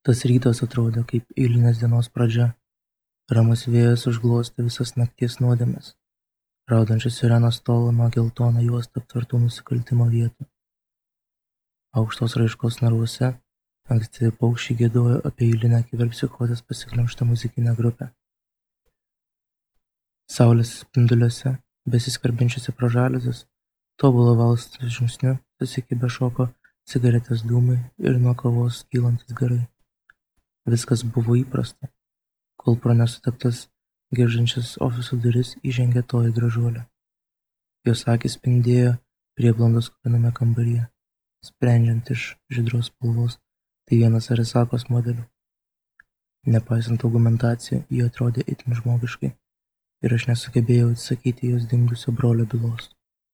Tas rytas atrodė kaip eilinės dienos pradžia. Ramus vėjas užglostė visas nakties nuodėmes. Raudančios sirenos tolo nuo geltoną juostą aptvertų nusikaltimo vietų. Aukštos raiškos narvuose ankstyvi paukščiai giedojo apie eilinę kiberpsichozės pasiglemžtą muzikinę grupę. Saulės spinduliuose, besiskverbiančiuose pro žaliuzes, tobulo valstų žingsniu susikibę šoko cigaretės dūmai ir nuo kavos kylantis garai. Viskas buvo įprasta, kol pro nesuteptas geržiančias ofiso duris įžengė toji gražuolė. Jos akys spindėjo prieblandos kupiname kambaryje, sprendžiant iš žydros spalvos, tai vienas Arisakos modelių. Nepaisant argumentacijų, ji atrodė itin žmogiškai ir aš nesugebėjau atsakyti jos dingusio brolio bylos.